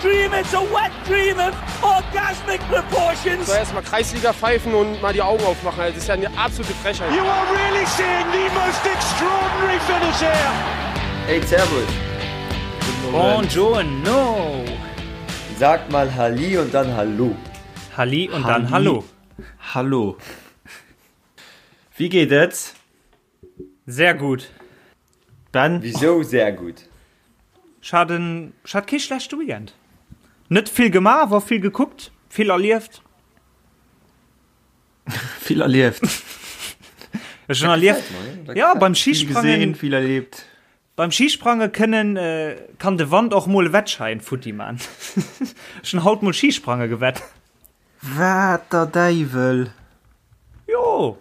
dream, it's a wet dream of orgasmic proportions. So erstmal Kreisliga pfeifen und mal die Augen aufmachen. Das ist ja eine absolute Frechheit. You are really seeing the most extraordinary finish here. Hey, Servus. Buongiorno. Sag mal Halli und dann Hallo. Halli und dann Hallo. Hallo. Wie geet et? Sehr gut. Ben? Wisou sehr gut? Ech hat en, ech hat kee schlechte Weekend. Net vill gemaach, awer vill gekuckt, vill erlieft. Vill erlieft. Ech hunn erlieft, ja, beim Vill gesehen, Schisprangen, vill erlebt. beim Schisprange kënnen, kann de Wand och mol e Wettschäin futti man. Ech hunn haut mol Schisprange gewett. Wat der Däiwel! Jo!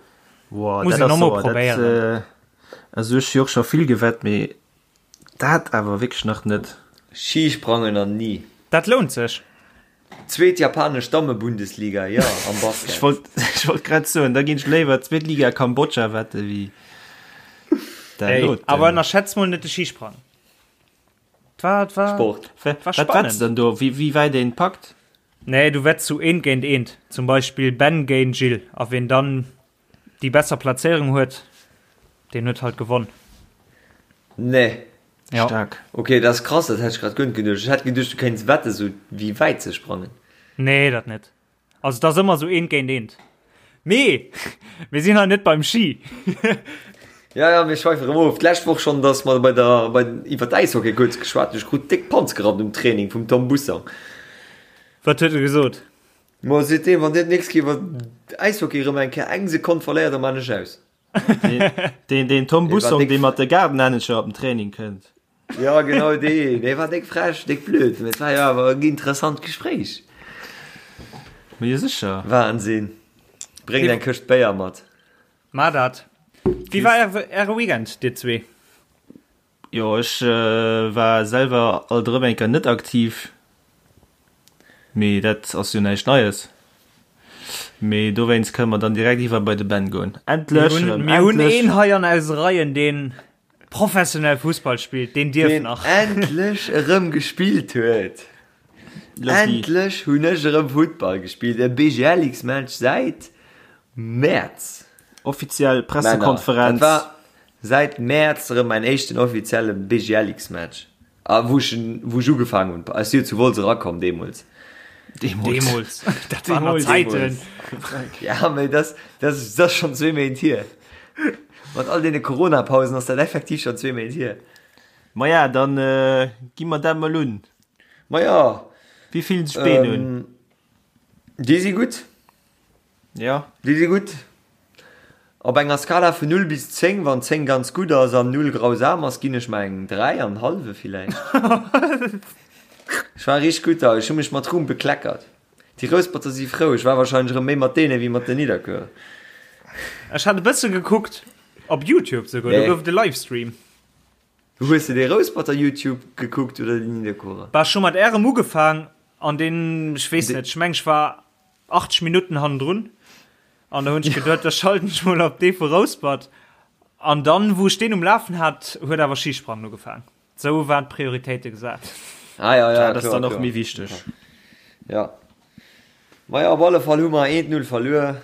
Wow, Muss dat een ass och mol sauer. Dat, probéieren. äh, also ech hu jo och scho vill gewett, mee dat awer wierklech nach net. Skisprangen an ni. Dat lount sech. Zweet japanesch Dammebundesliga, jo, am Basket. Ech wollt, ech wollt grad soen, da ginn ech léiwer zweet Liga Kambodscha wette wéi dat Ey, doten. awer ënnerschätz mol net de Skisprang. 't war, 't war, Sport. war Wat wetts spannend. dann do, wéi, wéi wäit een packt? Nee, du wetts sou eent géint eent. Zum Beispill Ben géint Gilles. A ween dann déi besser Plazéierung huet, deen huet halt gewonn. Nee. Ja. Staark. Ok, dat ass krass, dat hätt ech grad guer net geduecht. Ech hätt geduecht, du kéints wetten, sou wéi wäit se sprangen. Nee, dat net. Also et ass ëmmer sou eent géint eent. Mee mir sinn hei net beim Ski. Ja, ja, mir schweife rëm of. D'lescht Woch schonn, dass mer bei der, bei, iwwer d'Äishockey kuerz geschwat hunn. Ech krut déck Panz gerannt um Training vum Tom Bussang. Wat huet e gesot? Ma seet deen, wann dir d'nächst Kéier iwwer Äishockey rëm eng Kéier eng Sekonn verléiert, da maan ech aus. Deen, deen Tom Dee war Bussong, déck dee mat de Gaardenhännecher op den Training kënnt. Ja, genau deen. Dee war déck frech, déck blöd. Mee et war jo awer en interessant Gespréich. Ma jo, sécher. Wahnsinn. Bréngt eng Këscht Béier mat. Mar dat. Wéi war äre Weekend, dir zwee? Jo, ech war selwer alt erëm eng Kéier net aktiv. Mee dat ass jo näischt Neies. Mee dowéinst kënne mer dann direkt iwwer bei de Ben goen. Endlech erëm, Mir hunn endlech! een hei an eise Reien, deen professionell Fussball spillt, deen dierf Deen nach. endlech erëm gespillt huet. Lucky. Endlech hunn ech erëm Futtball gespillt, e BGLX-Match säit Mäerz. Offiziell Männer, dat Pressekonferenz. war säit Mäerz erëm mäin éischten offizielle BGLX-Match. A wou ech, wou ech ugefaangen hunn, ech si jo zu Wolz erakomm deemools. Deemools. Deemools. Dat waren nach Zäiten. Ja, mee dat, dat ass schonn zwee Méint hier. Mat all deene Corona-Pausen ass dat effektiv schonn zwee Méint hier. Maja, dann gi mer dat mol un. Maja. Wéi fillen sech d'Been un? Déi si gutt. Ja. Déi si gutt. Op enger Skala vun 0 bis 10, wann 10 ganz gutt ass an 0 grausam ass, ginn ech mer eng 3 an hallwe villäicht. Ech war richteg gutt da, ech hu mech mat Ruhm bekleckert. Déi Rousperter si frou, ech war wahrscheinlech erëm méi mat deene wéi mat den Nidderkuerer. Ech hat e bësse gekuckt, op Youtube souguer, do Nee. gouf et e Livestream. Hues de dee Rousperter Youtube gekuckt oder déi Nidderkuerer? Bah, ech hu mat ärem ugefaang an deen, ech weess net, ech meng ech war 80 Minutten hannendrun an da hunn ech geduet, da schalten ech mol op dee vu Rouspert an dann, wou ech deen um Lafen hat, huet awer Schisprangen ugefaang. Sou waren d'Prioritéite gesat. Ah ja, ja, Dat ass kloer, dann och kloer. méi wichteg. Ja. Maja, op alle Fall hu mer 1-0 verluer.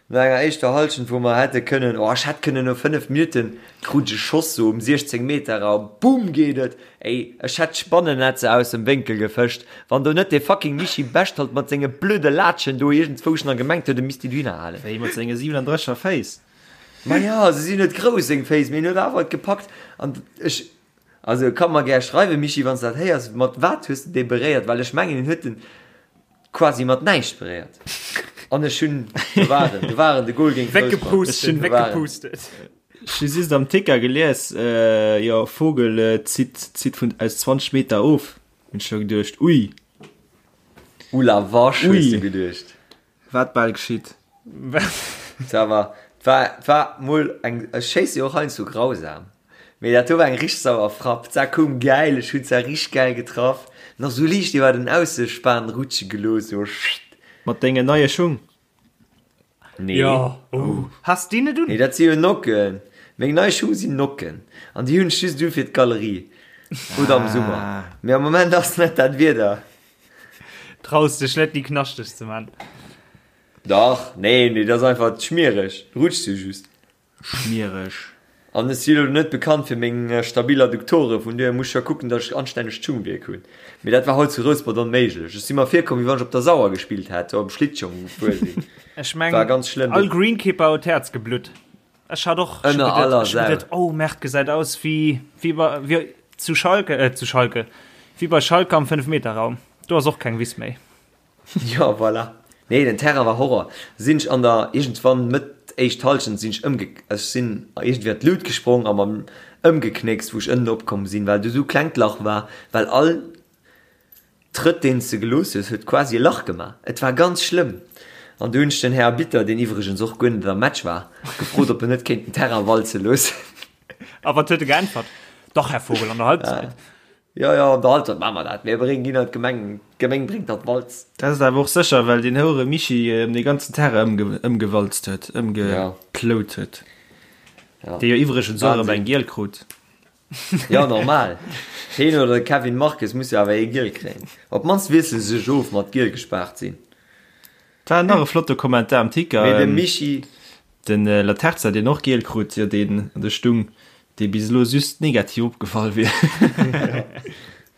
No enger éischter Hallschent, wou mer hätte kënnen, oh, ech hätt kënnen no 5 Minutten, krut ech e Schoss sou um 16 Meter a boom geet et. Ey, ech hätt d'Spannennetzer aus dem Wénkel gefëscht, wann do net dee fucking Michi Bechtold mat senge blöde Laatschen do iergendzwousch nach gemengt huet, e misst déi dohinner halen. Wéi mat senge 37er Féiss. Maja, se sinn net grouss, seng Féiss, mee en huet awer et gepackt an ech, also ka mer gär schreiwen, Michi, wann s de dat héiers, mat wat hues de dee beréiert, well ech mengen, en huet en quasi mat näischt beréiert an ech hunn, do war en, do war en, de Goal géint Rouspert, Weggepustet, do war en. weggepustet. Ech hu just am Ticker gelies, jo, Vogel zitt, zitt vun aus 20 Meter of. Hunn ech scho geduecht, ui. Ouh la vache, hues du Ui. geduecht. Wat bal geschitt. Ça va. War, war mol eng, ech schéisse jo och heiansdo grausam, mee dat do war eng richteg sauer Frapp. D'Sa koum gäil, ech hunn d'Sa richteg gäil getraff, nach sou liicht iwwer den Aussespan rutsche gelooss, sou schitt. Mat dengen neie Schung? Nee. Jo, oh, has déi net un? Nee, dat si jo Nocken. Meng nei Schung sinn Nocken an déi hunn ech just u fir d'Galerie oder am Summer. Mee am Moment ass net dat Wieder. Traus dech net déi knaschteg ze man. Dach, nee, nee, dat ass einfach schmiereg, rutscht jo just. Schmiereg. An ech si lo net bekannt fir meng stabil Adduktore, vun duerhir muss ech jo kucken, datt ech anstännegt Schungwierk hunn. Mee dat war haut zu Rouspert onméiglech. Ech si mer virkomm, wéi wann ech op der Sauer gespillt hätt, op dem Schlittschong gefuer sinn. Ech meng, War ganz schlëmm. all Greenkeeper huet d'Häerz geblutt. Ech hat och ech Ënner aller Sau. geduet, oh Merde, gesäit aus wéi, wéi bei, wéi zu Schalke, äh, zu Schalke, wéi bei Schalke am Fënnefmeterraum. Do ass och keng Wiss méi. Jo, voilà. Nee, den Terrain war Horror. Sinn ech an der, iergendwann Mëtt éischt Halschent sinn ech ëmge, ech sinn iergendwéi an d'Lut gesprong a mam ëmgeknéckst, wou ech ënnen opkomm sinn, well do sou klengt Lach war, well all Trëtt deen s de gelooss hues, huet quasi e Lach gemaach. Et war ganz schlëmm. An du hunn ech den Här Arbitter, deen iwwregens och guer net am Match war, gefrot, ob en net kéint den Terrain walze loossen. A wat huet e geäntwert? Dach, Här Vogel, an der Halbzeit. Jo, jo, an der Halbzeit maache mer dat. Mir bréngen ginn an d'Gemeng, d'Gemeng bréngt dann d'Walz. Dat ass awer och sécher, well deen houere Michi dee ganzen Terrain ëmgewalzt huet, ëmgeplout huet. Dee jo iwwregens och erëm eng giel krut. Jo, normal. Heen oder de Kevin Marques muss jo awer ee giel kréien. Op d'mannst wiessele se sech of mat giel gespaart sinn. Dat war nach e flotte Kommentar am Ticker. Mee de Michi. Den Laterza, deen och giel krut, jo deen an der Stung, dee bis elo just negativ opgefall wier.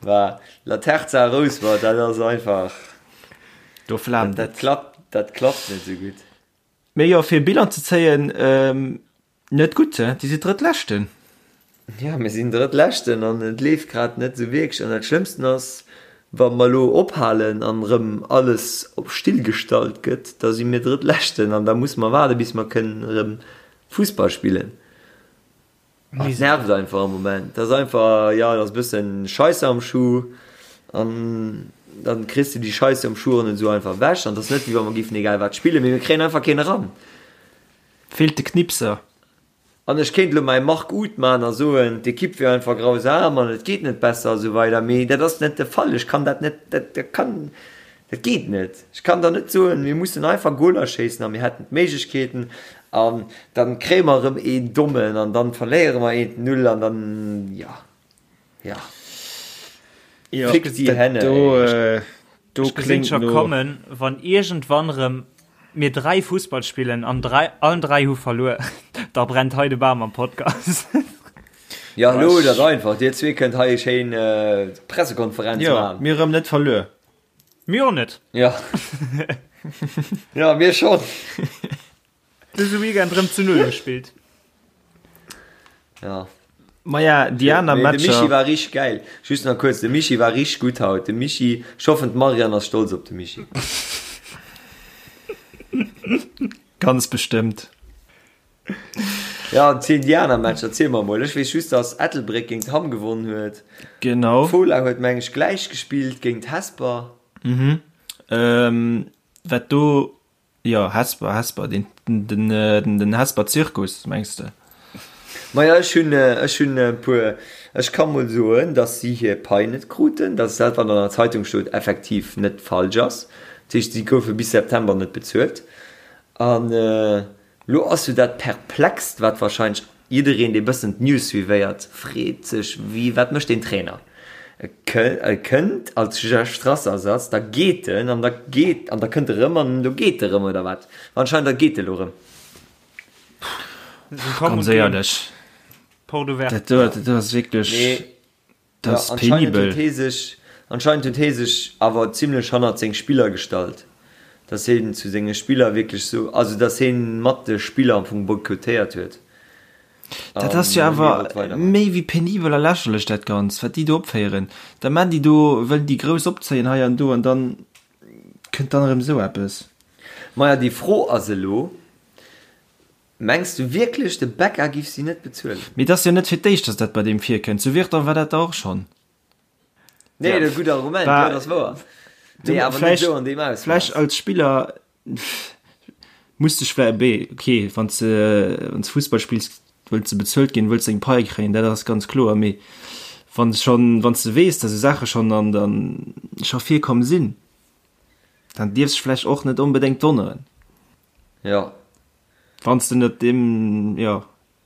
War Laterza Rouspert, dat ass einfach. Do flaamt et. Dat klappt, dat klappt net esou gutt. Mee jo, fir e Bilan ze zéien, Net gutt, he? Dir sidd Drëttleschten. Jo, mir sinn Drëttleschten an et leeft grad net esou wierklech. An dat Schlëmmsten ass, wa mer elo ophalen an erëm alles op still gestallt gëtt, da si mir Drëttleschten an da musse mer waarde bis mer kënnen erëm Fussball spillen. Et nervt einfach am Moment. Dat ass einfach, jo, et ass e bëssen Scheisse am Schuh an dann kriss de déi Scheisse am Schuh och net esou einfach ewech. An et ass net, wéi wa mer géifen egal wat spillen, mee mir kréien einfach keen eran. Feelt de Knipser. An ech kéint elo mäi Marc Uth maachen a soen, d'Ekipp wier einfach grausam an et geet net besser a sou weider, mee dat ass net de Fall. Ech kann dat net, dat kann, dat geet net. Ech kann der net soen, mir mussen einfach Goler schéissen a mir hätten d'Méiglechkeeten an dann kréie mer erëm een dommen an dann verléiere mer eent Null an dann, jo. Ja. Ja, Fick die Henne. Do, äh, do Ech gesinn scho kommen, wann iergendwann rëm mir 3 Fussball spillen an 3, allen 3 hu verluer, da brennt hei de Bam am Podcast. Ja, lo dat einfach. Dir zwee kënnt hei schéin äh, Pressekonferenz ja, machen. Mir rëm net verluer. Mir och net. Ja. ja, mir schon. Dëse Weekend rëm zu Null gespillt. Ja. Maja, déi aner Matcher. De Michi war richteg gäil. Just nach kuerz, de Michi war richteg gutt haut. De Michi, ech hoffen d'Marianne ass stolz op de Michi. Ganz bestëmmt. Ja, ziel déi aner Matcher, ziel mer mol. Ech weess just, dass Ettelbréck géint Hamm gewonnen huet. Genau. Fola huet meng ech gläich gespillt géint Hesper. Mhm. Ähm, wat do Jo, Hesper, Hesper, den, den, den Hesper Zirkus, mengs de? Maja, ech hunn, ech hunn e puer, ech ka mol soen, datt si hir Pai net kruten, datt dat, wat an der Zeitung stoot, effektiv net falsch ass. Dat heescht, si goufe bis September net bezuelt. An Lo ass jo dat Perplext, wat wahrscheinlech jiddereen, dee bëssen d'News suivéiert, freet sech, Wie, wat mécht deen Trainer? E kënnt als Jeff Strasser-Ersatz, da geet en an da geet, an da kënnt e rëm an elo geet e rëm, oder wat? Anscheinend da geet e lo rëm. Ganz éierlech, dat do, dat do ass wierklech. Dat ass penibel. Anscheinend huet hee sech, anscheinend huet hee sech awer zimlech hannert seng Spiller gestallt, dass heen zu senge Spiller wierklech sou, also dass heen mat de Spiller am Fong boykottéiert huet. Dat ass jo awer méi wéi penibel a lächerlech dat Ganzt, wat déi do opféieren. Da man déi do, wëllen déi grouss opzéien hei an do an dann kënnt dann erëm esou eppes. Maja, déi Fro ass elo, Mengs du wierklech de Becca giff si net bezuelen? Mee et ass jo net fir d'éischt, dass dat bei deem virkënnt. Zu Virton war dat da och schonn. Nee, dat gutt Argument, jo, dat ass wouer. Nee, awer net esou an deem Ausmooss. Vläicht als Spiller muss dech vläicht, bee, okay, wann s de, wann s Fussball spills, wëlls de bezuelt ginn, wëlls deng Pai kréien, dat ass ganz kloer. Mee wann s schonn, wann s de weess, dass esou Saache schonn an der, scho virkomm sinn, dann dierfs dech vläicht och net onbedéngt wonneren. Jo. Wann s de net deem, jo,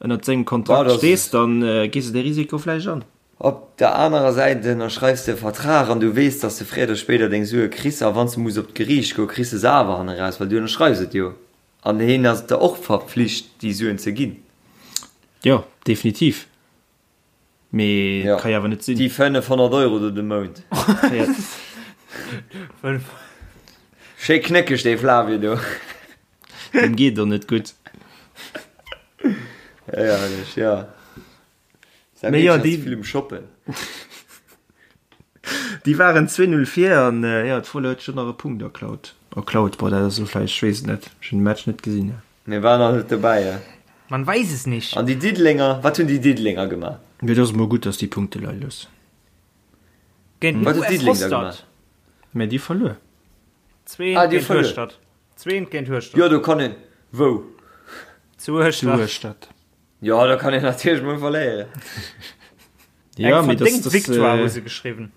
ënnert sengem Kontrakt stees, dann gees de dee Risiko vläicht an. Op der anerer Säit ënnerschreifs de e Vertrag an du weess, dass de fréier oder spéider deng Sue kriss a wann s de muss op d'Geriicht goen, kriss de se awer hanne raus, well du ënnerschreifs et jo an hien ass der och verpflicht, déi Suen ze ginn. Jo, definitiv. Mee et ka jo awer net sinn. Déi 500 Euro do de Mount. Schéi knéckeg dee Flavio do. Deem geet et och net gutt. Herrlech, jo. Mee jo, déi vill um Shoppen. Déi waren 2-0 vir an jo, d'Fola huet scho nach e Punkt erklaut. Erklaut, boah, dat ass elo vläicht, ech weess et net, ech hunn de Match net gesinn. Mir waren nach net dobäi, ja. Man weiß es nicht. An déi Diddelenger, wat hunn déi Diddelenger gemaach? Mee et ass emol gutt, datt déi Punkte leie loossen. Géint den Wat huet US Diddeleng da Hostert. gemaach? Mä déi verluer. Zweent Ah, déi géint verluer. Hueschtert. Zweent géint Hueschtert. Jo, do kann een, wou? Zu Hueschtert. Zu Hueschtert. Jo, da kann een natierlech mol verléieren. Ja, Eng mee das, verdéngt das, Victoire äh, hu se geschriwwen.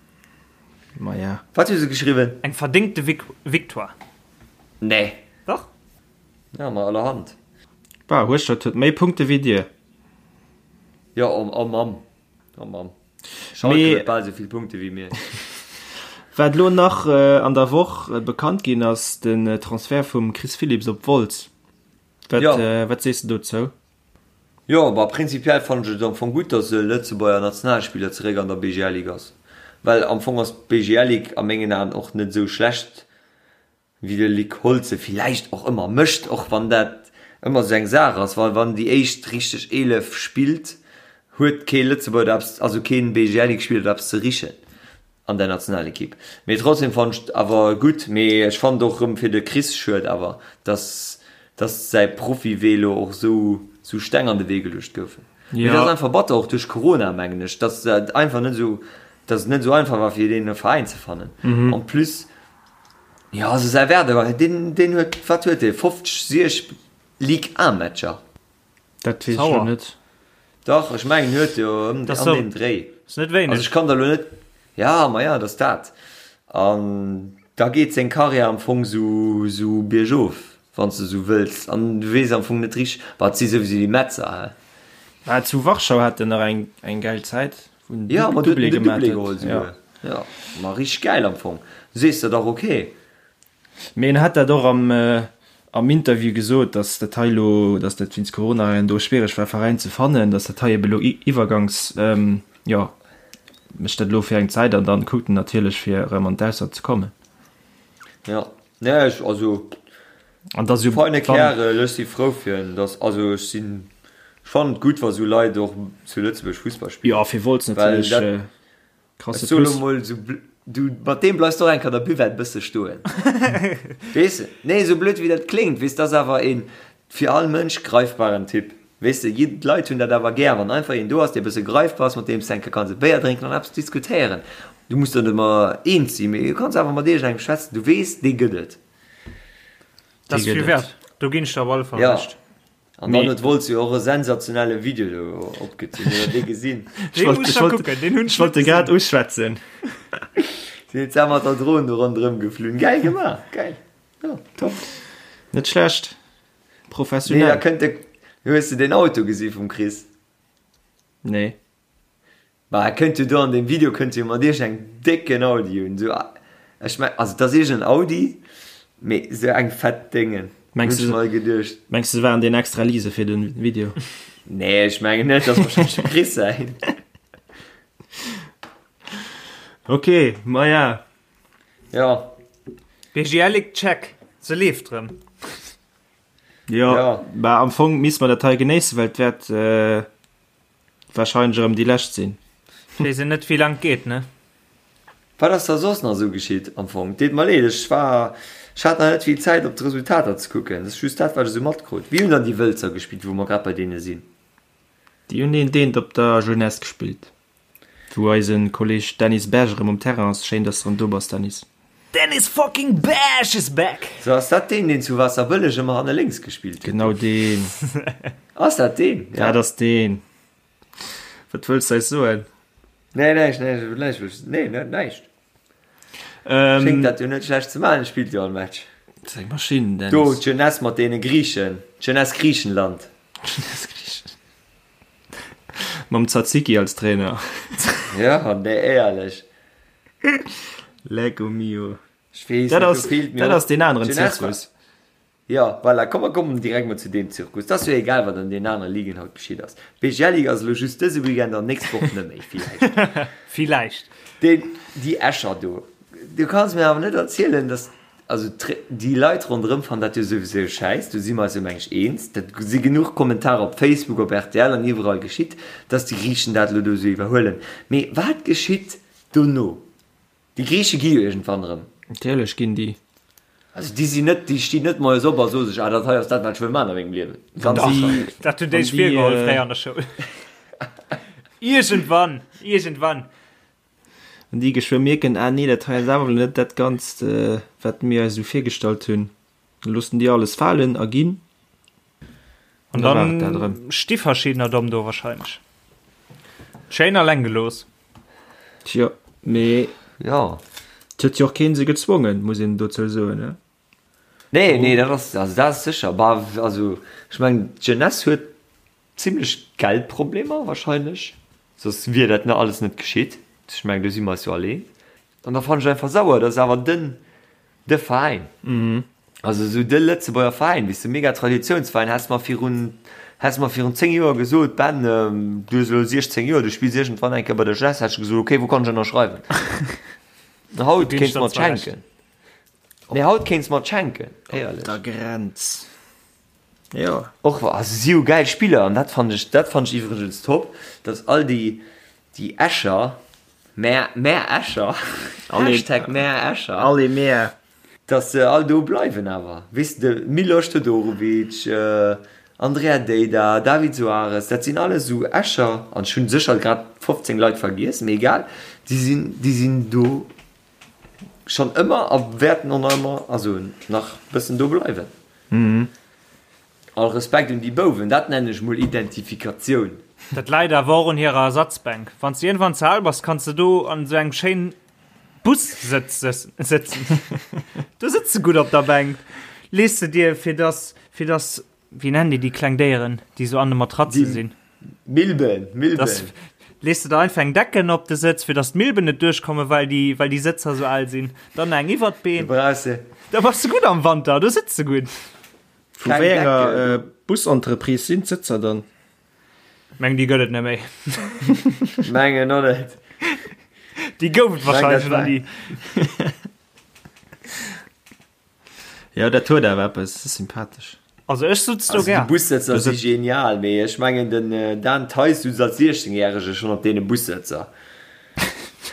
Ma ja. Wat hu se geschriwwen? Eng verdéngte Vic Victoire. Nee. Dach. Ja, ma allerhand. Bah, Hueschtert huet méi Punkte wéi dir. Jo, oh, oh Mamm. Oh Mamm. Schalke Mee- huet bal esou vill Punkte wéi mir. Wat lo nach äh, an der Woch äh, bekannt ginn ass, den äh, Transfert vum Chris Philipps op Wolz. Wat, Ja. äh, wat sees de dozou? Jo, bah prinzipiell fannen ech et am Fong gutt, dass e Lëtzebuerger Nationalspiller zeréck an der BGL Ligue ass, well am Fong ass d'BGL Ligue a mengen Aen och net esou schlecht wéi de Luc Holtz se villäicht och ëmmer mécht, och wann dat ëmmer esou eng Saach ass, well wann déi éischt richteg 11 spillt, huet kee Lëtzebuerger do eppes, also keen BGL Ligue Spiller do eppes ze richen. An der Nationalequipe. Mee trotzdem fannen ech et awer gutt. Mee ech fannen et och rëm fir de Chris schued awer, dass dass säi Profiwee lo och sou sou Steng an de Wee geluecht goufen. Mee dat ass einfach batter, och duerch Corona mengen ech, dass dat einfach net sou, dass et net sou einfach war fir deen e Veräin ze fannen. En plus, jo also säi Werdegang, deen deen huet, wat huet dee, 50, 60 Ligue 1 Matcher? Dat weess ech lo net. Dach, ech mengen huet jo ëm an deem Dréi. Ass net wéineg. Also ech kann der lo net, ja, ma ja, dat ass dat. An da geet seng Karriär am Fong sou sou biergof, wann s de sou wëlls. An du weess am Fong net richteg, bah, et si souwisou déi Metzer, hä? Bah, zu Warschau hat en nach eng eng gäil Zäit, wou en Ja, ma do huet Doublé en den gemaat Doublé huet. geholl souguer. Ja, ma richteg gäil am Fong. Du sees der dach, okay. Mee en hat dat och am am Interview gesot, datt dat hei elo, datt dat wéinst Corona hei an do schwiereg war Veräin ze fannen, datt dat hei ebe elo iwwergangs, jo, mécht dat elo fir eng Zäit an dann kuckt en natierlech fir erëm an d'Ausland ze kommen. Jo, nee ech, also An dass jo feine wann. Kärel, ech si frou fir en, datt, also ech sinn, ech fannen et gutt wa sou Leit och zu Lëtzebuerg Fussball spillen, Jo, fir Wolz well natierlech dat. Krasse Ech soe lo Plus. mol sou bl-, du, mat deem bleifs de och eng Kéier an der Buvette bësse stoen. Weess de? Nee, sou blöd wéi dat kléngt, weess, dat ass awer een fir all Mënsch greifbaren Typ. Weess de, jid-, d'Leit hunn dat awer gär, wann einfach een do ass, dee bësse greifbar ass, mat deem s de eng Kéier kanns e Béier drénken an eppes diskutéieren. Du muss der net ëmmer eens sinn, mee du kanns awer mat iergendengem schwätzen, du weess, dee gëtt et. Dat ass Dee vill gëtt et. wäert. Do ginn ech der op alle Fall Ja. Recht. An dann huet Wolz jo och e sensationelle Video do opgezunn. Hutt der dee gesinn? Ech wollt, ech wollt, ech wollt de grad uschwätzen. Si huet mat der Dron do ronderëm geflunn. Gäil gemaach, gäil. Jo, top. Net schlecht. Nee, da Professionell. kënnt de, hues de deen Auto gesi vum Chris? Nee. Ma e kënnt jo do an deem Video kënnt jo mat iergend engem décken Audi un, sou, ech meng, also et ass iergend en Audi, mee sou eng fett Déngen, hunn Mengs ech du, mer geduecht. mengs du se waren deen extra lease fir den Video? Nee, ech mengen net, dat ass wahrscheinlech dem Chris säin. Ok, maja. Ja. BGL-Ligue check, se leeft rëm. Jo, Ja. bah am Fong misst mer dat hei genéissen, well et wäert Wahrscheinlech erëm déi lescht sinn. Weess een net wéi lang et geet, ne? Wat ass da soss nach esou geschitt am Fong? Deet mer leed, ech war, ech hat nach net vill Zäit op d'Resultater ze kucken. Dat ass just dat wat ech esou matkrut. Wéi hunn dann déi Wëlzer gespillt, wou mer grad bei deene sinn? Déi hunn een Deent op der Jeunesse gespillt, wou eise Kolleg Dennis Berg erëm um Terrain ass. Schéin, dass de erëm do bass, Dennis. Dennis fucking Berg is back! So, ass dat deen, deen zu Waasserbëlleg ëmmer hanne lénks gespillt huet? Genau deen. Ass dat deen? Ja. Dat ass deen. Wat wëlls de eis soen? Nee, näischt, näischt, näischt, wëll ech, nee, net näischt. Ähm, Schéngt dat jo net schlecht ze maachen, spillt jo all Match. Dat ass eng Maschinn, Dennis. Do, d'Jeunesse mat deene Griichen, d'Jeunesse Griichenland. Jeunesse Griichenland. Mam Tzatziki als Trainer. Ja, nee, éierlech. Lecco mio. Ech weess Dat net, do ass, feelt mir dat och ass deen aneren d'Jeunesse war. Zirkus. Jo, voilà, komm mer kommen direkt mol zu deem Zirkus. 't ass jo egal, wat an deenen anere Ligen haut geschitt ass. D'BGL Ligue ass elo just dëse Weekend an nächst Woch net méi, villäicht. Villäicht. Deen, déi Escher do, du kanns mir awer net erzielen, dass, also déi Leit ronderëm fannen dat jo souwisou schäiss, do si mer eis jo meng ech eens, dat si genuch Kommentarer op Facebook, op rtl an iwwerall geschitt, dass déi Griichen dat elo do esou iwwerhuelen. Mee wat geschitt dono? Déi Griiche gi jo iergendwann erëm. Natierlech ginn déi. Also déi sinn net, déi stinn net moies op a soe sech, ah dat hei ass dat wat ech wëll maachen a mengem Liewen. Ganz sécher net. Dat hunn déi sech virgeholl fréier an der Schoul. Iergendwann, iergendwann. Wann déi geschwë mierken, ah nee, dat hei ass awer net dat Ganzt, wat mir eis esou virgestallt hunn, da loossen déi alles falen a ginn. An dann sti verschiddener domm do wahrscheinlech. Schéin alleng gelooss. Tjo, mee jo. Et huet jo och keen se gezwongen, muss een dozou soen, ne? Nee, nee, dat ass, also dat ass sécher. Bah, also ech mengen d'Jeunesse huet zimlech Geldproblemer wahrscheinlech, soss wier dat ne alles net geschitt. Ech mengen do si mer eis jo all eens. An da fannen ech einfach sauer, dass awer den de Veräin, also esou de Lëtzebuerger Veräin, weess de, mega Traditiounsveräin, häss mer virun, häss mer virun 10 Joer gesot, Ben, du hues elo 16 Joer, du spills iergendwann eng Kéier bei der Jeunesse, hätt ech gesot, okay, wou kann ech ënnerschreiwen? Haut kéints de mer et schenken. Nee, haut kéints de mer et schenken, éierlech. Op der Grenz, jo. Och wa, also si hu gäil Spiller an dat fannen ech, dat fannen ech iwwregens top, dass all déi, déi Escher, Mär, mär Escher, Hashtag mär Escher. Allez mär. Dass se all do bleiwen awer, weess de, Milos Todorovic, Andrea Deida, David Soares, dat sinn alles esou Escher, an ech hunn sécher grad 15 Leit vergiess, mee egal, déi sinn, déi sinn do schonn ëmmer a wäerten och nach ëmmer, also nach bëssen do bleiwen. All Respekt un déi Bouwen, dat nennen ech mol Identifikatioun. Dat läit awer och un hirer Ersatzbänk. Wann s de iergendwann ze al bass, kanns de do an esou engem schéinen Bus-Sëtz sëtzen. Do sëtz de gutt op der Bänk. Lees de dir, fir dass, fir dass, wéi nennen déi déi kleng Déieren, déi esou an de Matratze sinn? Milben, Milben. Dass, lees de der einfach eng Decken op de Sëtz, fir dass d'Milben net duerchkommen, well déi, well déi Sëtzer esou al sinn. Dann eng iwwert d'Been. Du brauchs se. Da bass de gutt am Wanter, do sëtz de gutt. Vu wéi enger Busentreprise sinn d'Sëtzer dann? Meng déi gëtt et net méi. Mengen och net. Déi gouf et wahrscheinlech nach ni. Jo, dat huet awer eppes, dat ass sympathesch. Also ech sutz do gär. Déi Bussëtzer si genial, mee ech mengen den Dan Theis sutz als 16 järege schonn op deene Bussëtzer.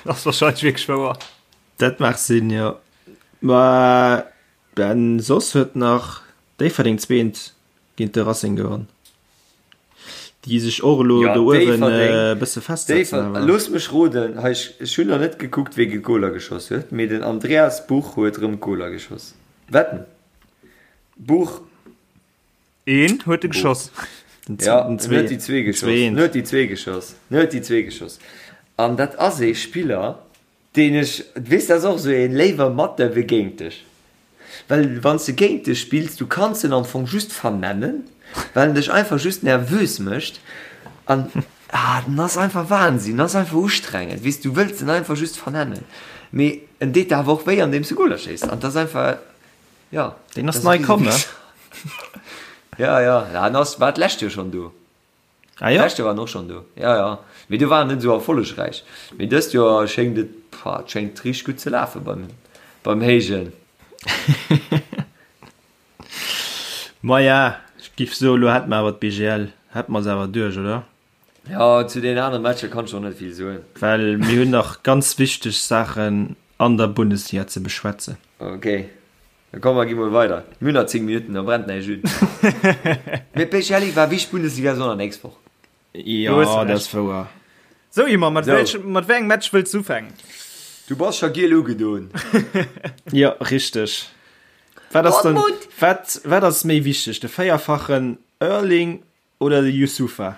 Dat ass wahrscheinlech wierklech wouer. Dat mag sinn, jo. Mä Ben, soss huet nach Déifferdeng zweent géint de Racing gewonn, déi sech och elo do uewen e bësse festsetzen awer. Looss mech roden, hei ech hunn nach net gekuckt wee Goler geschoss huet, mee den Andreas Buch huet erëm Goler geschoss. Wetten? Buch. Een huet e geschoss. Ja, en huet déi zwee geschoss. En huet déi zwee geschoss. En huet déi zwee geschoss. An dat ass ee Spiller, Deen ech, weess, dat ass och esou een, léiwer mat der wéi géint dech. Well wann s de géint dech spills, du kanns en am Fong just vernennen, well en dech einfach just nervös mécht an, ah, den ass einfach Wahnsinn, den ass einfach ustrengend, weess, du wëlls en einfach just vernennen, mee en deet der awer och wéi andeems de Goler schéiss an 't ass einfach, jo. Deen ass nei komm, ne? Ja, ja, en ass, war d'lescht Joer schonn do. Ah jo? D'lescht Joer war en och schonn do, jo jo. Mee do war en net esou erfollegräich. Mee dëst Joer schéngt et, pah, et schéngt richteg gutt ze lafe beim, beim Héijen. Maja, ech giff soen, elo hätt mer awer d'BGL, hätt mer se awer duerch, oder? Jo, zu deenen anere Matcher kann ech och net vill soen. Well mir hunn nach ganz wichteg Saachen an der Bundesliga ze beschwätzen. Okay. Da komm mer gi mol weider. Mir hunn nach 10 Minutten, da brennt näischt un. Mee Pech Elli war wichteg Bundesliga Sonner nächst Woch. Jo, dat ass wouer. Sou Ymer, mat wéi mat wéi engem Match wëlls du ufänken? Du bass scho giel ugedon. Jo, richteg. Wat ass dann, wat, wat ass méi wichteg, de véierfachen Erling Oder de Youssoupha?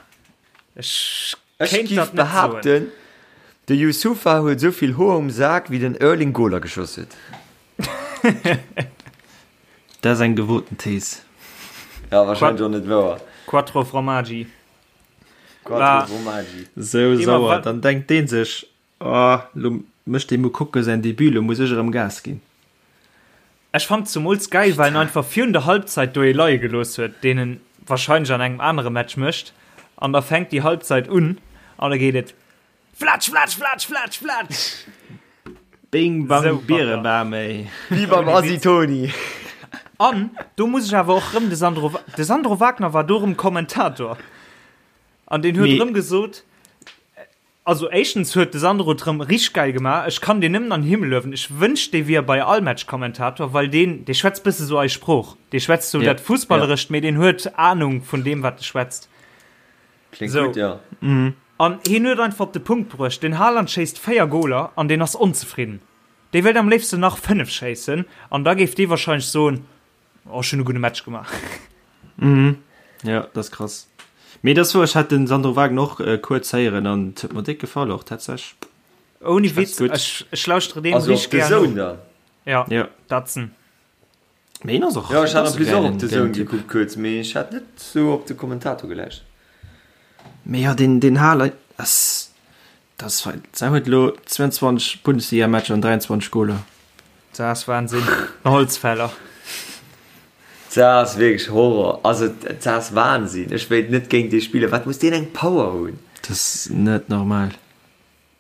Ech Ech kéint giff dat net soen. behaapten, de Youssoupha huet esou vill Hoer um Sak wéi den Erling Goler geschoss huet. Dat ass eng gewoten Thees. Ja, wahrscheinlech och net wouer. Quattro Formaggi. Quattro Formaggi. Sou sauer, dann denkt deen sech, oh, lo mécht dee Moukoko säin Debut, lo muss ech erëm Gas ginn. Ech fand zumools geil, well en einfach virun der Halbzeit do ee leie gelooss huet, deen en wahrscheinlech an engem anere Match mécht, an da fänkt déi Halbzeit un an da geet et flatsch, flatsch, flatsch, flatsch, flatsch. Bing bang Bierebam ey. Wéi beim Asi Toni. An do muss ech awer och rëm de Sandro, de Sandro Wagner war do rëm Kommentator an deen huet rëm gesot, Also éischtens huet de Sandro et rëm richteg gäil gemaach, ech kann deen nëmmen an den Himmel luewen, ech wënscht dee wier bei all Match Kommentator, well deen dee schwätzt bësse sou eis Sprooch, dee schwätzt sou dat Fussballerescht, mee deen huet Ahnung vun deem wat e schwätzt. Kléngt gutt, jo. An hien huet einfach op de Punkt bruecht, den Haaland schéisst 4 Goler an deen ass onzefridden, dee wéilt am léifsten nach 5 schéissen an da géif dee wahrscheinlech soen, Oh, ech hunn e gudde Match gemaach. Mhm. Ja, dat ass krass. Mee dat ass wouer, ech hat den Sandro Wagner och äh, kuerz héieren an et huet mer déck gefall och tatsächlech. Ouni Schwätzt Witz, gutt. ech, ech lauschtere deem Also op richteg de gär Zone no. dann? Ja, Ja. dat sinn. Mee hien ass och, Ja, ech hat ass en e plus och gäilen, op de gäilen Zone Typ. gekuckt kuerz, mee ech hat net sou op de Kommentator gelauschtert. Mee jo, deen, deen Haaland ass, dat ass fein. Säi huet elo 22 Bundesligamatcher an 23 Goler. Dat ass Wahnsinn. En Holzfäller. Dat ass wierklech Horror. Also dat ass Wahnsinn. Ech wéilt net géint dee spillen. Wat muss deen eng Power hunn? Dat ass net normal.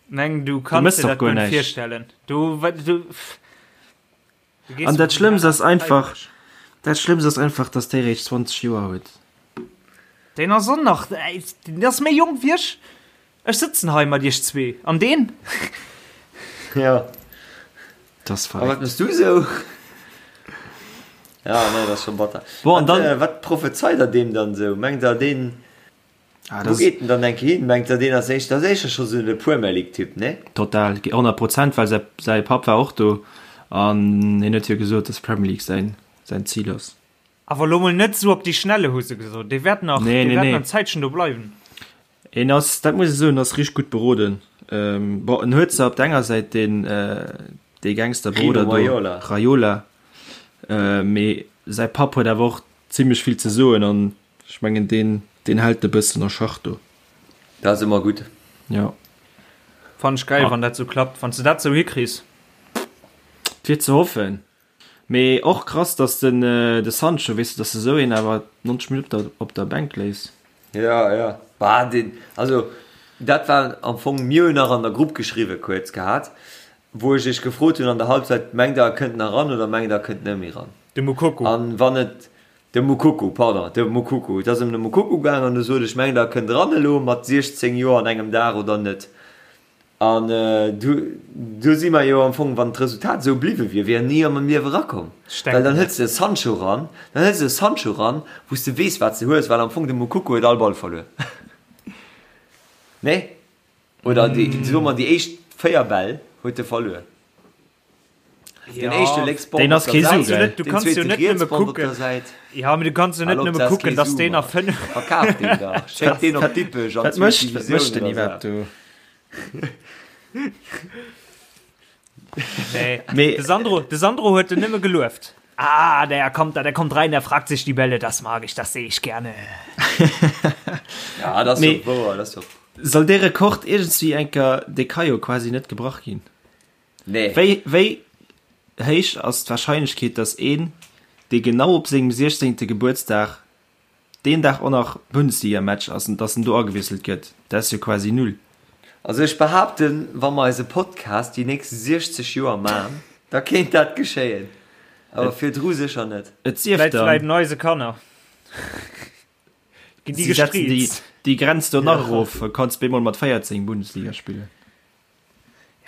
Meng du Du kanns mëss dir doch dat guer guer net näischt. virstellen. Du, wa, du, du gees An dat vum Schlëmmst ass Haaland einfach, fräiwëlleg. dat Schlëmmst ass einfach, dass dee réischt 20 Joer huet. Deen ass och nach, deen ass méi jonk wéi ech. Ech sëtzen hei mat iech zwee an deen. Ja. Dat ass A wat verréckt. mëss du sou? Ja, nee, dat ass scho batter. Bon, an Wat, dann. äh, wat prophezeit der deem dann sou? Mengt der deen, Ah, wou dat ass geet en dann eng Kéier hin? Mengt der deen ass éischter, dat ass éischter scho sou de Premier League Typ, nee? total, 100 Prozent, well säi, säi Papp war och do an hien huet jo gesot, dass Premier League säin, säin Zil ass. Awer lo mol net sou op déi Schnelle, hu se gesot. Dee wäert nach, Nee, dee nee, wäert nee. nach en Zäitchen do bleiwen. En ass, dat muss ech soen, ass richteg gutt beroden. Bon, en huet zwar op der enger Säit deen, dee Gangsterbrudder Rino do, Raiola. Raiola, mee säi Papp huet awer och zimlech vill ze soen an ech mengen, deen, deen hält e bëssen a Schach do. Dat ass ëmmer gutt. Jo. Fannen ech geil, wann dat sou klappt, wann s de dat sou hikriss. Et wier ze hoffen. Mee och krass dass den de Sancho, weess de, dass de sou een awer 90 Minutten op der Bänk léiss. Ja, ja. Bah, den, also dat war am Fong, mir hunn nach an der Grupp geschriwwe kuerz gehat, wou ech iech gefrot hunn an der Halbzeit, mengt der e kënnt nach ran oder mengt der e kënnt net méi ran? De Moukoko. An wann et, de Moukoko, pardon, de Moukoko, et ass ëm de Moukoko gaang an du sot ech, mengt der e kënnt ran elo mat 16 Joer an engem Dag oder net? An do si mer jo am Fong, wann d'Resultat esou bliwwe wier, wier en ni am Liewe erakomm. Well dann hëls de e Sancho ran, dann hëls de e Sancho ran, wou s de weess, wat s de hues, well am Fong de Moukoko huet all Ball verluer. Nee? Oder déi, soe mer, déi éischt 4 Bäll huet e verluer. Den éischte lénks Bord Deen op ass der kee Säit, Su, gell? Du den kanns jo zweete net riets nëmme Bord op kucken. der Säit. Ja, mee du kanns jo net Hal op, nëmme dat ass kucken, kee dass Su, deen a Mann. 5. Verkaf deen dach. Schéck deen op Dippech an Wat d'zweet mécht, wat Divisioun mécht den oder iwwerhaapt sou. do? Nee. Mee- De Sandro, de Sandro huet en nëmme gelueft. Ah, der kommt da, der kommt rein, der fragt sich die Bälle, das mag ich, das sehe ich gerne. Ja, dat ass Mee- jo wouer, dat ass jo. Soll dee Rekord iergendswéi enker, dee ka jo quasi net gebrach ginn. Nee. Wéi, wéi héich ass d'Warscheinlechkeet, dass een, dee genau op sengem 16. Gebuertsdag deen Dag och nach Bundesligamatch ass, dass en do agewiesselt gëtt? Dat ass jo quasi null. Also ech behaapten, wa mer eise Podcast déi nächst 60 Joer man, da kéint dat geschéien. Awer virdru sécher net. Et sief Vläit dann. vläit eise Kanner. Ginn déi Si setzen déi, gestriizt. déi Grenz do nach erof, kanns bemol mat 14 Bundesliga spillen.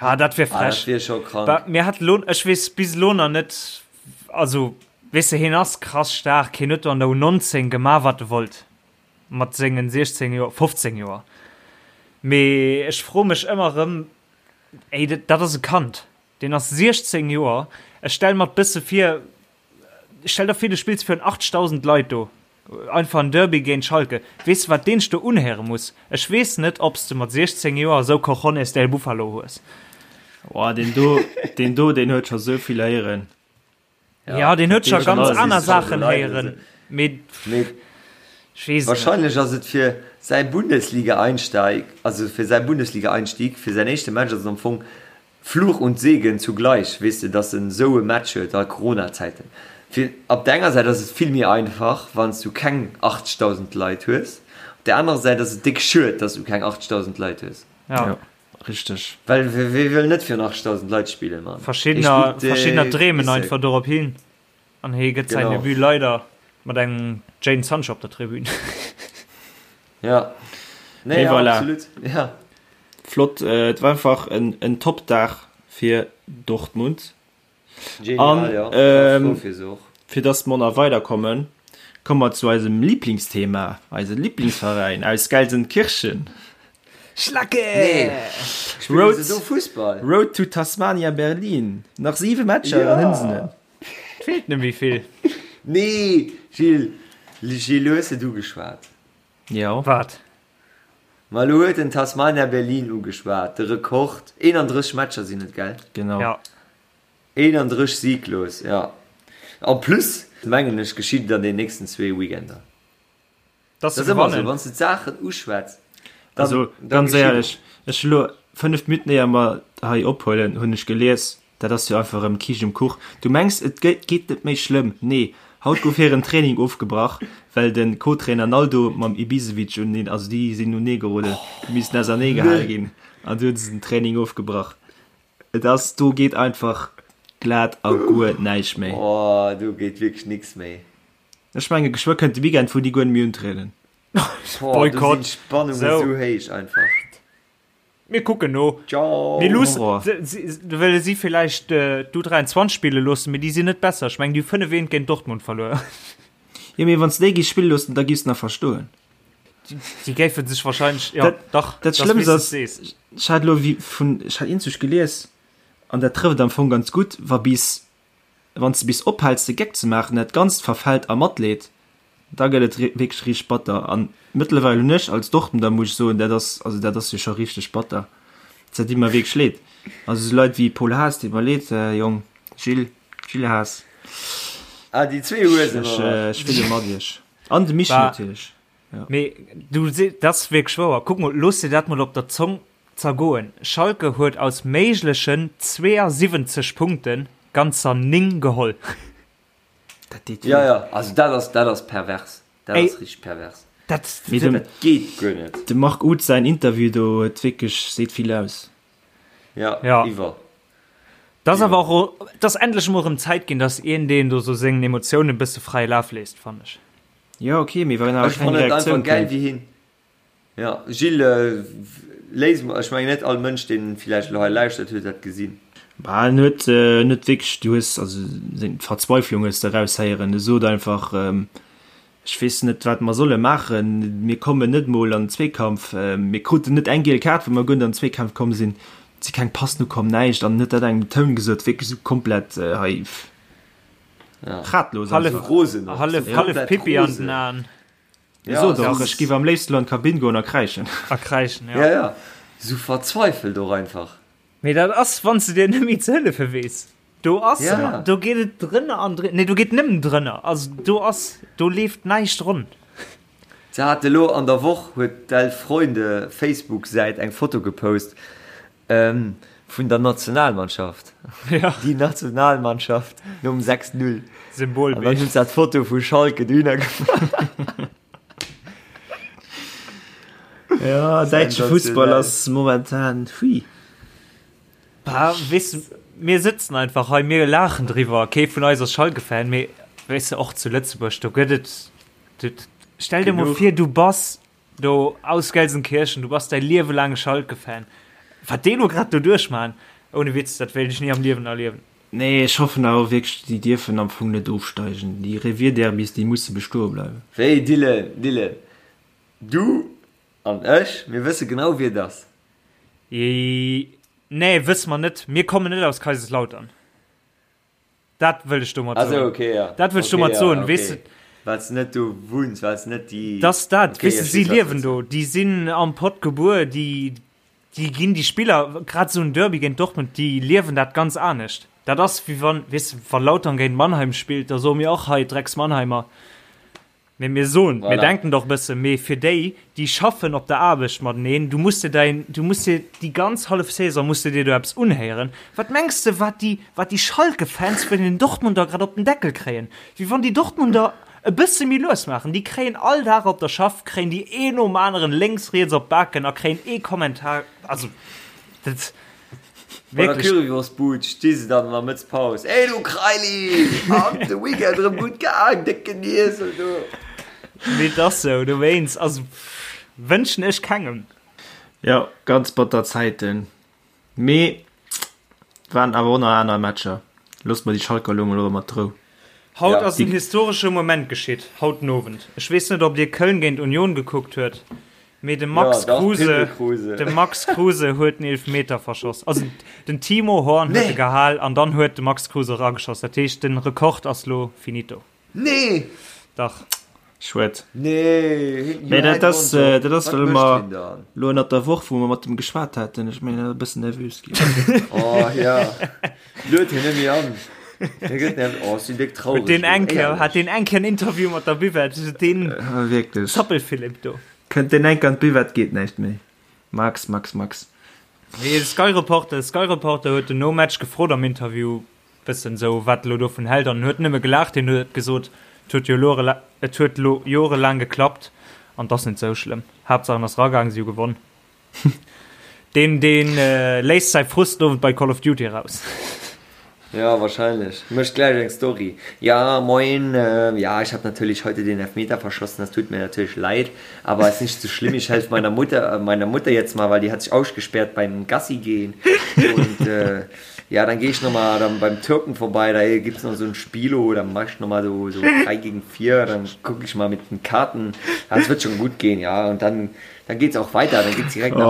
Ja, dat wär Ah, dat frech. wier scho krank. Ba, mir hat lo, ech weess bis elo nach net, also, weess de, hien ass krass staark, hien huet do an der U19 gemaach, wat e wollt, mat sengen 16 Joer, 15 Joer. Mee ech froe mech ëmmer erëm, ey, dat, dat ass e Kand, deen ass 16 Joer, ech stelle mer et bësse vir, Stell der vir du spills virun 80.000 Leit do einfach en Derby géint Schalke. Weess de wat deen sech do unhéiere muss? Ech weess net obs de mat 16 Joer esou Cojones del Buffalo hues. Oh, deen do, deen do, deen huet scho sou vill héieren. Ja, deen huet scho deen ganz huet aner scho Saachen Leit héieren, mee Mee ech weess et net. wahrscheinlech ass et fir. Säi Bundesliga-Einsteig, also fir säi Bundesliga-Einstieg, fir säin éischte Match ass et am Fong Fluch und Segen zugleich, weess de, dass en esou e Match huet a Corona-Zäiten. Fir op der enger Säit ass et vill méi einfach, wann s du keng 80.000 Leit hues, op der anerer Säit ass et déck schued, dass du keng 80.000 Leit hues. Ja. Richteg. Well wee wëll net virun 80.000 Leit spillen, Mann? Verschiddener, verschiddener dreemen einfach dorop hin. An hie gëtt säin Debut leider mat engem Jadon Sancho op der Tribün. Ja. Nee, ja, voilà. absolut. Ja. Flott, äh, et war einfach en, en Top-Dag fir Dortmund. Genial, An, ja. ähm, Fir se och. Fir dass mer nach weiderkommen, komme mer zu eisem Lieblingsthema, eise Lieblingsveräin aus Gelsenkirchen. Schlacke! Nee. Spillen Road, se do Fussball? Road to Tasmania Berlin. Nach siwe Matcher, Ja. dann hunn se en. Feelt net méi vill. Nee, Gilles, Gilles, lo hues de et ugeschwat. Jo. Wat? Ma lo huet en Tasmania Berlin ugeschwat, de Rekord, 31 Matcher sinn et, gell? Genau. Ja. 31 sieglos, ja. En plus, mengen ech, geschitt et an den nächsten zwee Weekender. Dass Dat se ass ëmmer esou, gewannen. wann s de d'Saachen uschwätz, dann, Also dann ganz geschitt et. éierlech, ech hu lo 5 Minutten éier mer hei ophuelen, hunn ech gelies, dat ass jo einfach erëm Kiischt um Kuch. Du mengs et geet net méi schlëmm? Nee, haut gouf hiren Training ofgebrach, well de Co-Trainer Naldo mam Ibisevic uneen, also déi sinn unee geroden, déi missten ausernee gehale ginn an du hunn se den Training ofgebrach. Et ass, do geet einfach glat a guer näischt méi. Oh, do geet wierklech nix méi. Ech menge geschwë kënnt de Weekend wou déi guer net méi untrieden. Boah, do Boykott. sinn d'Spannungen Sou. sou héich einfach. Mir kucken no. Ciao. Mir luussen, Horror. se, si, wëlle si villäicht äh, d'U23 spille loossen, mee déi sinn net besser. Ech mengen, déi hu 5 eent géint Dortmund verluer. Jo mee wann s déi giss spille loossen, da giss de nach verstoen. Déi géife sech wahrscheinlech, ja, Dat, dach, dat das Schlëmmst wéi s de ass, sees. ech hat elo wéi vun, ech hat eenzeg gelies, an dat trëfft am Fong ganz gutt, wa bis Wann s de bis ophäls de Geck ze maachen, dat Ganzt verfält a Matleed, da gëtt et wierklech richteg batter. An mëttlerweil hunn ech als Dortmunder, muss ech soen, dat ass, also dat ass jo scho richteg batter, dat deet mer wierklech leed. Also esou Leit wéi Paul Haas, deet mer leed, Jong, Gilles, Gilles Haas, Ah, déi zwee Huesen, ech, oder? ech fille mat iech. An de Michi Bah. natierlech. Mee du se, dat ass wierklech wouer. Kuck mol, looss dir dat mol op der Zong zergoen. Schalke huet aus méiglechen 72 Punkte ganzer 9 geholl. Dat deet Ja, wéi. ja, also dat ass, dat ass pervers. Dat Ey. ass richteg pervers. Dat, Mee dem, Dat geet guer net. dem Marc Uth säin Interview do huet wierklech, seet vill aus. Ja, Ja. iwwer. dat ass awer och, et ass endlech emol erëm Zäit ginn, dass een deen do sou sengen Emotiounen e bësse fräie Laf léisst, fannen ech. Jo, ok, mee wann awer Ech keng fannen et einfach Reaktioun gäil kënnt. wéi hien. Ja, Gilles, léis mol, ech mengen net all Mënsch deen villäicht elo hei lauschtert huet dat gesinn. Bah, en huet net wierklech, du hues also seng Verzweiflung hues de eraushéieren. E sot einfach, ech weess net wat mer solle maachen, mir kommen net mol an den Zweekampf, mir kruten net eng giel Kaart well mer guer net an den Zweekampf komm sinn, et si keng Passen ukomm, näischt an en huet dat engem Toun gesot, wierklech esou komplett hei ratlos Hallef einfach. Rosen och, Hallef, esou hallef komplett Pipi an rosen. den Aen. E Ja, sot esou och, ech géif am léifsten elo an d'Kabinn goen a kräischen. A kräischen, ja. Ja, ja, esou verzweifelt och einfach. Mee dat ass, wann s de dir net méi ze hëllefe weess. Do ass, Ja. do geet et drënner an drënner, nee, do geet nëmmen drënner. Also do ass, do leeft näischt ronn. Se hat elo an der Woch huet d'Elf Freunde Facebook-Säit eng Foto gepost vun der Nationalmannschaft. Ja. Déi Nationalmannschaft nom 6, 0. An dann Symbolbild. hunn se dat Foto vu Schalke dohinner gemaach. Ja, däitsche Fussball ass momentan hui. Bah, weess de, mir sëtzen einfach hei, mir laachen driwwer. Kee vun eis ass Schalke-Fan, mee weess de, och zu Lëtzebuerg, do gëtt et, du, stell dir mol vir, du bass do aus Gelsenkirchen, du bass däi Liewe laang Schalke-Fan. Wat déi elo grad do duerchmachen, ohne Witz, dat wéilt ech ni am Liewen erliewen. Nee, ech hoffen awer wierklech, déi dierfen am Fong net ofsteigen. Déi Revierderbys, déi musse bestoe bleiwen. Wéi, Dylan, Dylan, du an ech, mir wësse genau, wie et ass. Nee, wësse mer net. Mir kommen net aus Kaiserslautern. Dat wëll ech domat Ah sou, soen. okay, ja. Dat wëll ech Okay, domat ja, soen, okay. weess de. Well s de net do wunns, well s net déi. Dass dat, Okay, weess de, ech si weess, wat liewen du do, déi sinn am Pott gebuer, déi, déi ginn déi Spiller, grad esou en Derby géint Dortmund, déi liewen dat ganz anescht. Dat ass wéi wann, weess de, wa Lautern géint Mannheim spillt, da soe mir och hei Drecks Mannheimer. Mee mir soen, mir denken dach e bësse, mee fir déi, déi schaffen op der Aarbecht mateneen, du muss dir däin, du muss dir déi ganz hallef Saison muss de dir do eppes unhéieren. Wat mengs de, wat déi, wat déi Schalke-Fans vun den Dortmunder grad op den Deckel kréien? Wéi wann déi Dortmunder e bësse méi lues maachen. Déi kréien all Dag op der Schaff, kréien déi een nom aneren lénks, riets op d'Baken a kréien ee Kommentar, also dat. Bei der Currywurstbud sti se dann an der Mëttspaus, Ey du Kraili, an de Weekend erëm gutt gaang, décken Iesel du. Mee et ass sou, dowéinst, also wënschen ech kengem. Jo, ganz batter Zäiten, mee waren awer och nach aner Matcher. Loosse mer déi Schalker elo mol och ëmmer d'Rou. Haut ass en historesche Moment geschitt, haut den Owend. Ech weess net, ob dir Köln géint Union gekuckt huet. Mee de Max ja, Kruse, Kruse. De Max Kruse huet den Elfmeter verschoss. Also den Timo Horn huet nee. gehal an dann huet de Max Kruse rageschoss. Dat heescht den Rekord ass lo finito. Nee. Dach. Schued. Nee. Nee, dat ass, äh, dat ass well mer lo ënnert der Woch, wou mer mat dem geschwat haten, ech mengen e bëssen nervös ginn. Oh ja. Lued hien net méi an. Hie gëtt nervös. Oh, sinn déck traureg. Huet deen eng Kéier, hat deen eng Kéier en Interview mat der Buvette, deen äh, wierklech. Zappelphilipp do. Kënnt deen enk an d'Buvette geet näischt méi. Max, Max, Max. Nee, de Sky Reporter, Sky Reporter huet en nom Match gefrot am Interview bëssen esou wat e lo dovun hält an en huet nëmme gelaacht. Hien huet gesot, et huet jo lo, et huet lo jorelaang geklappt an 't ass net sou schlëmm. Haaptsaach en ass ragaang, si hu gewonn. Deen, deen léisst säi Frust den Owend bei Call of Duty eraus. Ja, wahrscheinlech. Mécht gläich eng Story. Ja, moin, ja, ich hab natürlich heute den Elfmeter verschossen, das tut mir natürlich leid, aber ist nicht so schlimm, ich helf meiner Mutter, meiner Mutter jetzt mal, weil die hat sich ausgesperrt beim Gassi gehen und äh, ja, dann geh ich nochmal dann beim Türken vorbei, da gibt's noch so ein Spielo, dann mach ich nochmal so, so 3 gegen 4, dann guck ich mal mit den Karten, ja, es wird schon gut gehen, ja, und dann Dann geht's auch weiter, dann geht's direkt nach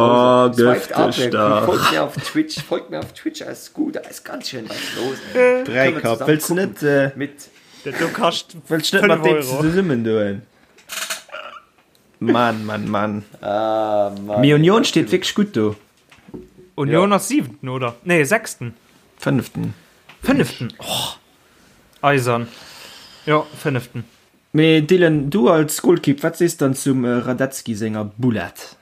Hause. Oh, Swiped ab, folgt mir auf Twitch, folgt mir auf Twitch, alles gut, da ist ganz schön was los. Dräikapp, wëlls du net äh, mit Dat do kascht wëlls du net mat 5 deem Euro. zesummen doen? Mann, Mann, Mann. Ah, Mann. Mee Union steet wierklech gutt do. Union ass siwenten, oder? Nee, sechsten. Fënneften. Fënneften, oh! Eisern. Jo, fënneften. Mee Dylan, du als Golkipp, wat sees dann zum Radetzky senger Boulette?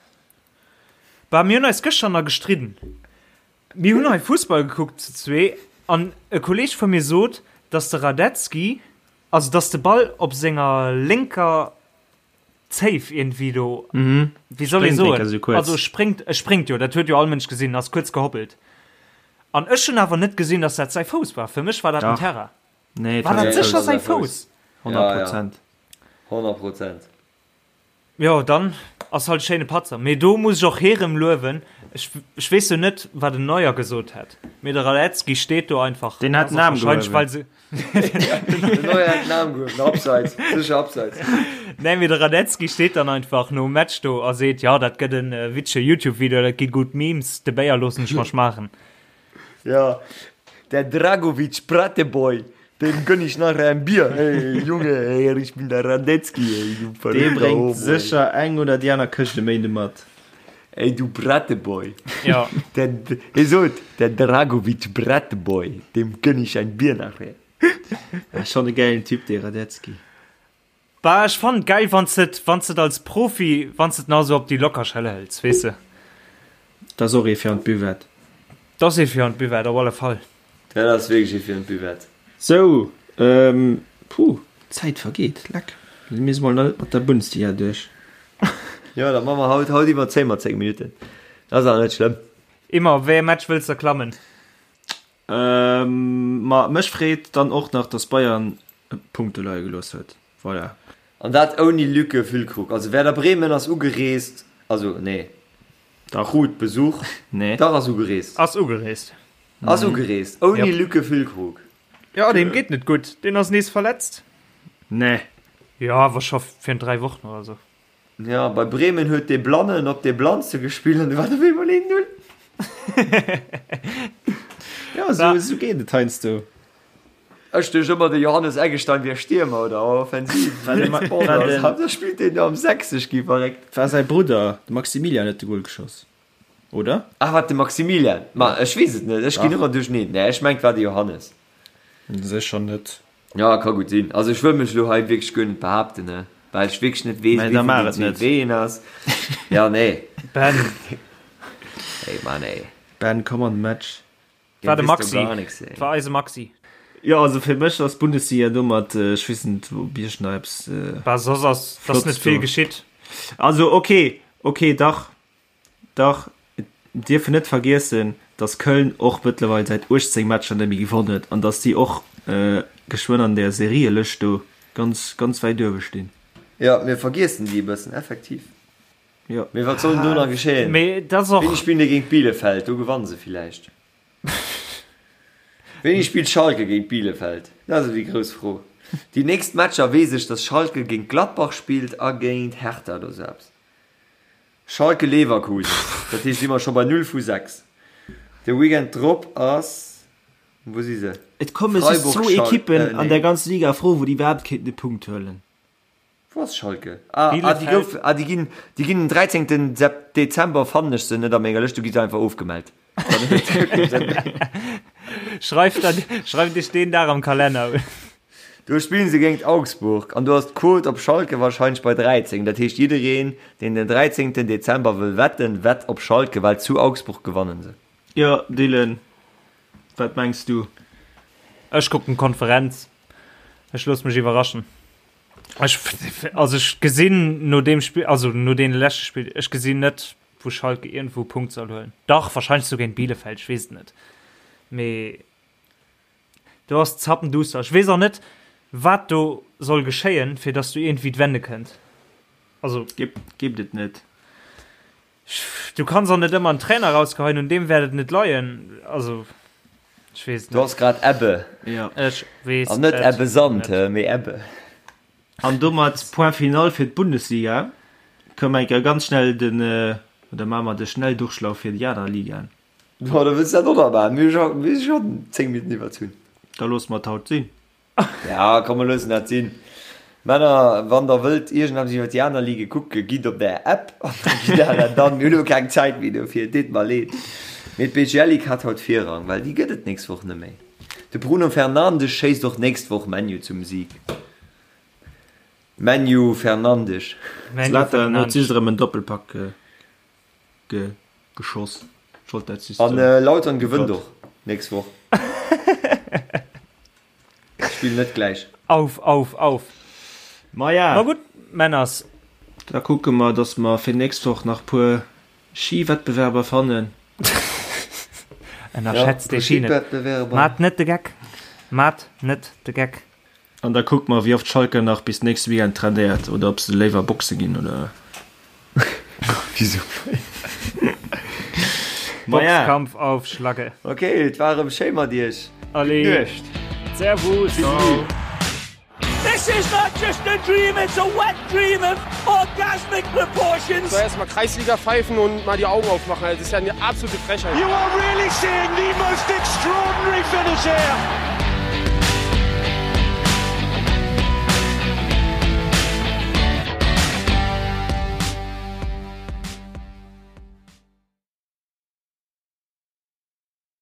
Bah, mir hunn eis gëschter nach gestridden. Mir hunn hei Fussball gekuckt zu zwee an e Kolleeg vu mir sot, dass de Radetzky, also dass de Ball op senger lénker Zéif iergendwéi do, wéi soll ee soen, also spréngt, e spréngt jo, dat huet jo all Mënsch gesinn, ass kuerz gehoppelt. An ech hunn awer net gesinn, dass dat säi Fouss war. Fir mech war dat den Terrain. Nee, War dat sécher säi Fouss? 100 Prozent. 100 Prozent. Jo, dann ass halt e schéine Patzer. Mee do muss ech och hirem luewen. Ech, ech weess jo net, wat den Neuer gesot hätt, mee de Radetzky steet do einfach. Deen hat den Aarm Wahrscheinlech, gehuewen. well se. Den Neuer hat den Aarm gehuewen, Abseits, sécher Abseits. Nee, mee de Radetzky steet dann einfach nom Match do a seet, jo, dat gëtt en witzege Youtube-Video, dat gi gutt Memes, de Béier loossen ech mer schmaachen. Ja, der Dragovic Prateboy, dem gönn ich nachher ein Bier. Hey, Junge, hey, ich bin der Radetzky, ey, du Dee verrückter bréngt Homo, ey. sécher eng oder déi aner Këscht e Méinde mat. Ey, du Prateboy. Ja. Der, hie sot, der Dragovic Prateboy, dem gönn ich ein Bier nachher. Schon e gäilen Typ, dee Radetzky. Bah, ech fannen et geil wanns de et, wanns de et als Profi, wanns de et nach esou op déi locker Schëller hëls, weess de. Dat ass och ee fir an d'Buvette. Dat ass ee fir an d'Buvette, op alle Fall. Dat ass wierklech ee fir an d'Buvette. Sou, puh, d'Zäit vergeet, leck, mir si mol nach net mat der Bundesliga duerch. Jo, da maache mer haut, haut iwwerzéie mer 10 Minutten, dat ass awer net schlëmm. Immer, wéi ee Match wëlls de klammen? Ma mech freet dann och nach, dass Bayern Punkte leie gelooss huet. Voilà. An dat ouni Lücke Füllkrug. Also Werder Bremen ass ugereest, also nee, Dach. krut Besuch, Nee. dach ass ugereest. Ass ugereest. Ass ugereest, ouni Yep. Lücke Füllkrug. Jo, deem geet net gutt. Deen ass nees verletzt. Nee. Jo, awer scho virun 3 Wochen oder sou. Ja, bei Bremen huet dee Blannen op dee Blannste gespillt an du war op eemol 1-0. Ja, sou, sou geet et heiansdo. Ech duecht ëmmer de Johannes Eggestein wier Stiermer oder Offensiv. Da spillt deen do am 60 gi verréckt. War säi Brudder, de Maximilian, huet de Gol geschoss, oder? Ah wat de Maximilian? Ma ech weess et net, ech ginn ëmmer duercheneen. Nee, ech mengt war de Johannes. Sécher net. Ja, ka gutt sinn. Also ech wëll mech elo hei wierklech guer net behaapten, ne. Well ech wierklech net weess, Mä da wéi maach vun et den net. wéi een ass. Ja, nee. Ben. Ey, Mann, ey. Ben, komm an de Match. War de Dir wisst Maxi. doch gar nix, ey. War eise Maxi. Jo, also fir mech ass d'Bundesliga domat, ech weess net, ob Iech nach eppes Bah, soss ass, ass Flotts net vill do. geschitt. Also okay, okay, dach, dach, et dierf een net vergiessen, datt Köln och mëttlerweil säit 18 Matcher net méi gewonn huet an datt déi och geschwënn an där Serielëscht do ganz, ganz wäit uewe stinn. Jo, mir vergiessen déi e bëssen, effektiv. Jo. Mee wat soll denn do nach geschéien? Mee dat ass och. Wéini spillen déi géint Bielefeld? Do gewanne se villäicht. Wéini spillt Schalke géint Bielefeld? Dat ass déi grouss Fro. Déi nächst Matcher weess ech, dass Schalke géint Gladbach spillt a géint Hertha oder sou eppes. Schalke Leverkusen, dat heescht si mer scho bei 0 vu 6. De Weekend drop ass, wou si se? Et komme just Freiburg, zwou Schal-, Ekippen äh, an nee. der ganzer Liga a Fro, wou déi iwwerhaapt kéinten e Punkt huelen. Wou ass Schalke? Ah, ah, déi Bielefeld. gouf, ah, déi ginn, déi ginn den 13. Sep Dezember fannen ech se net a menger Lëscht, du gi se einfach ofgemellt. Dann huet wierklech Sënn. Schreift dann, schreift iech deen Dag am Kalenner un. Do spillen se géingt Augsburg an do ass d'Quote op Schalke wahrscheinlech bei 13. Dat heescht jiddereen, deen den 13. Dezember wëll wetten, wett op Schalke, well zu Augsburg gewannen se. Jo, Dylan, wat mengs du? Ech kucken d'Konferenz. Ech loosse mech iwwerraschen. Ech, also ech gesinn no deem Spill, also no deene leschte Spill, ech gesinn net, wou Schalke iergendwou e Punkt soll huelen. Dach, wahrscheinlech sou géint Bielefeld, ech weess et net. Mee do ass zappenduster. Ech weess och net, wat do soll geschéien, fir datt do iergendwéi d'Wende kënnt. Also. Gebt et net. Du kanns och net ëmmer en Trainer rausgeheien, un deem wäert et net leien. Also, ech weess et Du net. ass grad Ebbe. Ja. Ech weess An net et Ebbe Sand, net. mee Ebbe. An domat Point final fir d'Bundesliga. Kënne mer eng Kéier ganz schnell den, oder maache mer de Schnelldurchlauf fir déi aner Ligaen. Boah, da wëlls du dat och nach maachen. Mir hu scho 10 Minutten iwwerzunn. Da loosse mer et haut sinn. Ja, komm, mer loossen dat sinn. Männer, wann der wëllt iergendeppes iwwer déi aner Ligue kucken, gitt op der App an da gitt der dat an. Mir hunn elo keng Zäit méi dofir, et deet mer leed. Mee d'BGL Ligue hat haut Virrang, well déi gëtt et nächst Woch net méi. De Bruno Fernandes schéisst och nächst Woch ManU zum Sieg. ManU Fernandes. Zlatan huet just erëm en Doppelpack ge geschoss. Ech wollt dat just An soen. Lautern gewënnt och nächst Woch. Spillen net gläich. Auf, auf, auf. Maja. Ma gutt, Männers. Da kucke mer, dass mer fir nächst Woch nach puer Schiwettbewerber fannen. Ënnerschätzt dee Ski net. Maat net de Geck. Maat net de Geck. An da kucke mer, wéi oft Schalke nach bis nächste Weekend trainéiert oder ob se léiwer boxe ginn oder. Wisou? Maja. Boxkampf auf Schlacke. Ok, et war erëm schéi mat iech. Allez. Gutt Nuecht. Servus. Ciao. This is not just a dream, it's a wet dream of orgasmic proportions. So erstmal Kreisliga pfeifen und mal die Augen aufmachen. Also, das ist ja eine absolute Frechheit. You are really seeing the most extraordinary finish here.